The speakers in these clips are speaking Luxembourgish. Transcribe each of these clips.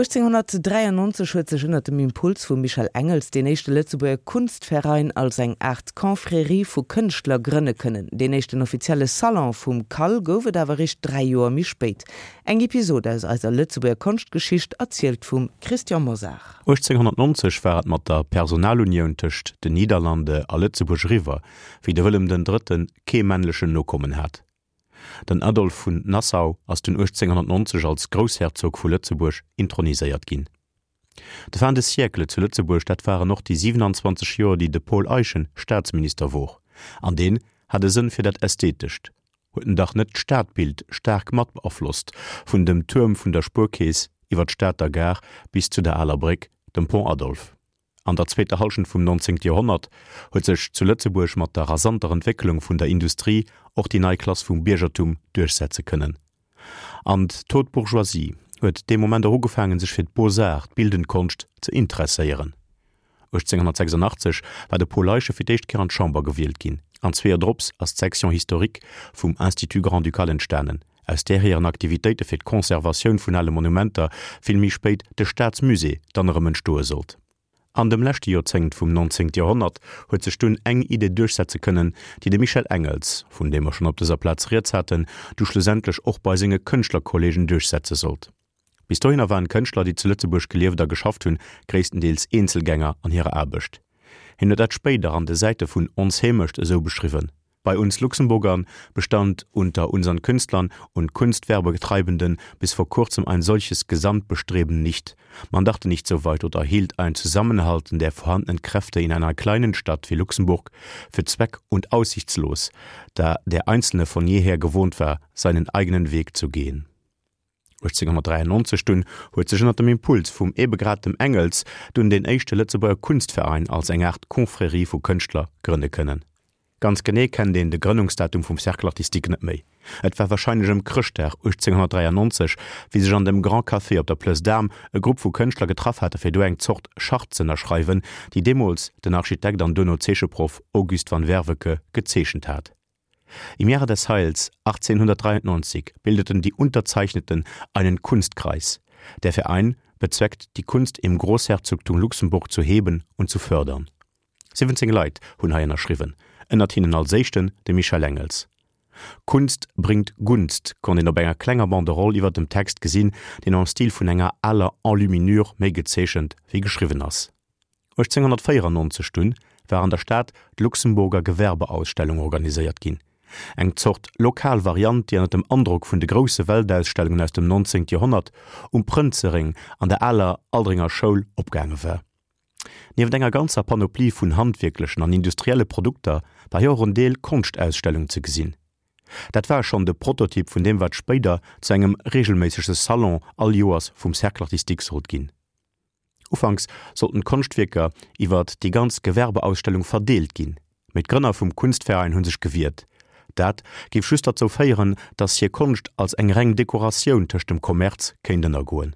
1893 huet sech ënner dem Impuls vum Michel Engels deen éischte Lëtzebuerger Kunstverein als eng Aart Confrérie vu Kënschtler grënne kënnen. Deen éischten offizielle Salon vum CAL gouf et awer eréischt 3 Joer méi spéit. Eng Episod aus eiser Lëtzebuerger Konschtgeschicht, erzielt vum Christian Mosar. 1890 war et mat der Personalunioun tëscht den Niederlande a Lëtzebuerg eriwwer, wéi de Wëllem den Drëtten kee männlechen Nokommen hat. Den Adolphe vun Nassau ass dunn 1890 als Groussherzog vu Lëtzebuerg introniséiert ginn. De Fin de siècle zu Lëtzebuerg, dat waren och déi 27 Joer, déi de Paul Eyschen Staatsminister wor. An deen hat e Sënn fir dat Ästhetescht. Huet en dach net d'Stadbild staark mat beaflosst, vun dem Tuerm vun der Spuerkeess iwwer d'Stater Gare bis zu der Aler Bréck, dem Pont Adolphe. An der zweeter Hallschent vum 19. Joerhonnert huet sech zu Lëtzebuerg mat der rasanter Entwécklung vun der Industrie och déi nei Klass vum Biergertum duerchsetze kënnen. An d'Haute Bourgeoisie huet dee Moment och ugefaangen, sech fir d'Beaux-Arts, d'bildend Konscht, ze interesséieren. 1886 war de Paul Eyschen fir d'éischt Kéier an d'Chamber gewielt ginn, an zwee Joer drops ass d'Section historique vum Institut grand-ducal entstanen, aus där hiren Aktivitéite fir d'Conservatioun vun ale Monumenter vill méi spéit de Staatsmusée dann erëm entstoe sollt. An dem leschte Joerzéngt vum 19. Joerhonnert huet sech dunn eng Idee duerchsetze kënnen, déi de Michel Engels, vun deem mer schonn op dëser Plaz rieds haten, du schlussendlech och bei senge Kënschtlerkolleegen duerchsetze sollt. Bis dohinner waren d'Kënschtler, déi zu Lëtzebuerg gelieft a geschafft hunn, gréisstendeels Eenzelgänger an hirer Aarbecht. Hien huet dat spéider an de Säite vun Ons Heemecht esou beschriwwen, Bei uns Luxemburgern bestand unter unseren Künstlern und Kunstwerbetreibenden bis vor kurzem ein solches Gesamtbestreben nicht. Man dachte nicht so weit oder hielt ein Zusammenhalten der vorhandenen Kräfte in einer kleinen Stadt wie Luxemburg für zweck- und aussichtslos, da der Einzelne von jeher gewohnt war, seinen eigenen Weg zu gehen. 1893 dunn huet sech ënner dem Impuls vum ebe grad dem Engels dunn deen éischte Lëtzebuerger Kunstverein als eng Aart Confrérie vu Kënschtler grënne kënnen. Ganz genee kennt een de Grënnungsdatum vum Cercle artistique net méi. Et war warscheinlech ëm Chrëschtdag 1893, wéi sech an dem Grand Café op der Plëss d'Armes e Grupp vu Kënschtler getraff hate fir do eng Zort Charte z'ënnerschreiwen, déi deemools den Architekt an duerno Zeecheproff Auguste van Werveke gezeechent hat. Im Jahre des Heils 1893 bildeten die Unterzeichneten einen Kunstkreis. Der Verein bezweckt, die Kunst im Großherzogtum Luxemburg zu heben und zu fördern. 17 Leit hunn hei ënnerschriwwen, ënnert hinnen als éischten de Michel Engels. Kunst bringt Gunst konnt een op enger klenger Banderole iwwer dem Text gesinn, deen am Stil vun enger aler Enluminure méi gezeechent wéi geschriwwen ass. 1894 dunn war an der Stad d'Luxemburger Gewerbeausstellung organiséiert ginn, eng Zort lokal Variant, déi ënner dem Androck vun de grousse Weltausstellungen aus dem 19. Joerhonnert um Prënzeréng an der aler Aldringer Schoul opgaange war. Nieft enger ganzer Panoplie vun handwierklechen an industrielle Produkter war hei och en Deel Konschtausstellung ze gesinn. Dat war schonn de Prototyp vun deem wat spéider zu engem reegelméissege Salon all Joers vum Cercle artistique sollt ginn. Ufanks sollten d'Konschtwierker iwwert déi ganz Gewerbeausstellung verdeelt ginn, mee d'Grënner vum Kunstverein hu sech gewiert. Dat géif just derzou féieren, datt hir Konscht als eng reng Dekoratioun tëscht dem Kommerz kéint ënnergoen.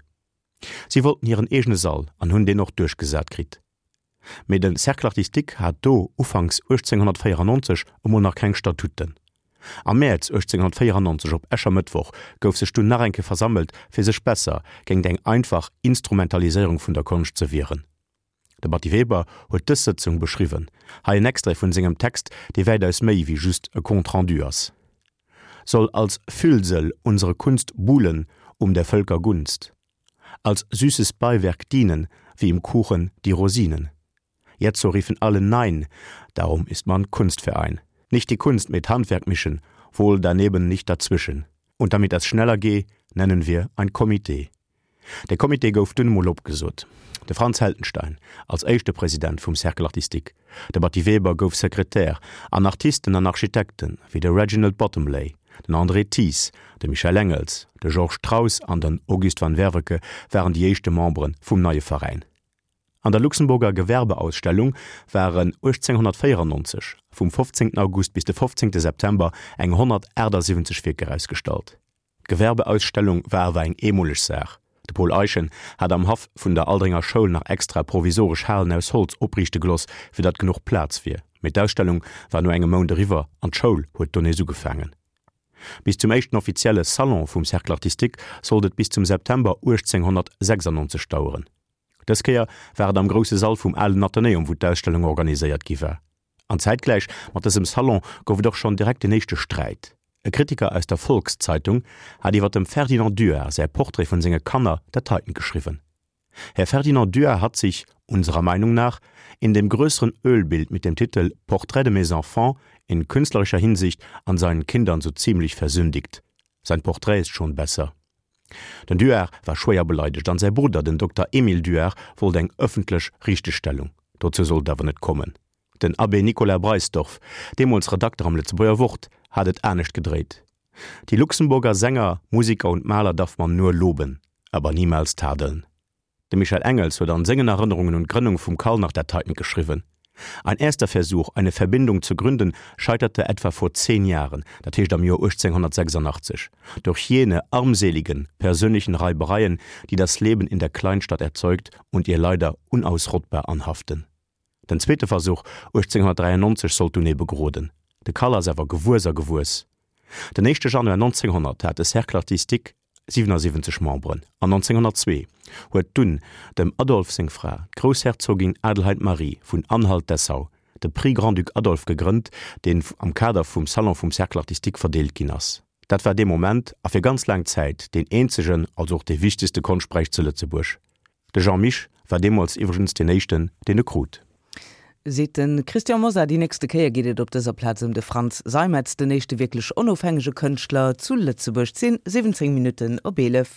Si wollten hiren eegene Sall an hunn deen och duerchgesat kritt. Mee de Cercle artistique hat do ufanks 1894 emol nach keng Statuten. Am Mäerz 1894, op Äschermëttwoch, gouf sech dunn nach eng Kéier versammelt, fir sech besser géingt eng einfach Instrumentaliséierung vun der Konscht ze wieren. De Batty Weber huet dës Sëtzung beschriwwen. Hei en Extrait vun sengem Text, dee wäitaus méi wéi just e Compte rendu ass. Soll als Füllsel unsere Kunst buhlen um der Völker Gunst, als süßes Beiwerk dienen, wie im Kuchen die Rosinen. Jetzo riefen alle Nein, darum ist man Kunstverein. Nicht die Kunst mit Handwerk mischen, wohl daneben nicht dazwischen. Und damit das schneller geh, nennen wir ein Komitee. De Comité gouf dunn emol opgesot. De Franz Heldenstein als éischte President vum Cercle artistique, de Batty Weber gouf Sekretär an Artisten an Architekten wéi de Reginald Bottomley, den André Thies, de Michel Engels, de Georges Traus an den Auguste van Werveke waren déi éischte Membere vum neie Veräin. An der Luxemburger Gewerbeausstellung waren 1894 vum 15 August bis de 15 September eng 178 Wierker ausgestallt. D'Gewerbeausstellung war awer eng eemoleg Saach. De Paul Eyschen hat am Haff vun der Aldringer Schoul nach extra provisoresch Halen aus Holz opriichte geloss, fir datt genuch Plaz wier. Mee d'Ausstellung war no engem Mount eriwwer an d'Schoul huet do nees ugefaangen. Bis zum éischten offizielle Salon vum Cercle artistique sollt et bis zum September 1896 daueren. Dës Kéier war et am grousse Sall vum alen Athenäum, wou d'Ausstellung organiséiert gi war. An zäitgläich mat dësem Salon gouf et och schonn direkt den éischte Sträit. E Kritiker aus der Volkszeitung hat iwwer dem Ferdinand Duard säi Portrait vun senge Kanner dat heiten geschriwwen, Herr Ferdinand Duard hat sich, unserer Meinung nach, in dem größeren Ölbild mit dem Titel Portrait de mes enfants in künstlerischer Hinsicht an seinen Kindern so ziemlich versündigt. Sein Porträt ist schon besser. Den Duard war schwéier beleidegt an säi Brudder, den Dokter Emile Duard, wollt eng ëffentlech Richtegstellung. Dozou sollt et awer net kommen. Den Abbé Nicolas Breisdorff, deemools Redakter am Lëtzebuerger Wort, hat et anescht gedréit, Die Luxemburger Sänger, Musiker und Maler darf man nur loben, aber niemals tadeln. De Michel Engels huet an sengen Erënnerungen un d'Grënnung vum CAL nach dat heiten geschriwwen, Ein erster Versuch, eine Verbindung zu gründen, scheiterte etwa vor zehn Jahren, dat heescht am Joer 1886, durch jene armseligen persönlichen Reibereien, die das Leben in der Kleinstadt erzeugt und ihr leider unausrottbar anhaften. Den zweete Versuch 1893 sollt dunn ebe geroden. De Cal ass awer gewuess a gewuess. Den éischte Januar 1900 hat de Cercle artistique 77 Memberen an 1902 huet dunn dem Adolphe seng Fra, d'Groussherzogin Adelheid Marie vun Anhalt-Dessau, de Prix Grand-Duc Adolphe gegrënnt, deen am Kader vum Salon vum Cercle artistique verdeelt ginn ass. Dat war dee Moment a fir ganz laang Zäit deen eenzegen, also och dee wichtegste Konschtpräis zu Lëtzebuerg. De Jean Mich war deemools iwwregens deen éischten, deen e krut. Seet de Christian Mosar. Déi nächste Kéier geet et op dëser Plaz ëm de Frantz Seimetz, den éischte wierklech onofhängege Kënschtler zu Lëtzebuerg. 10, 17 Minutten op 11.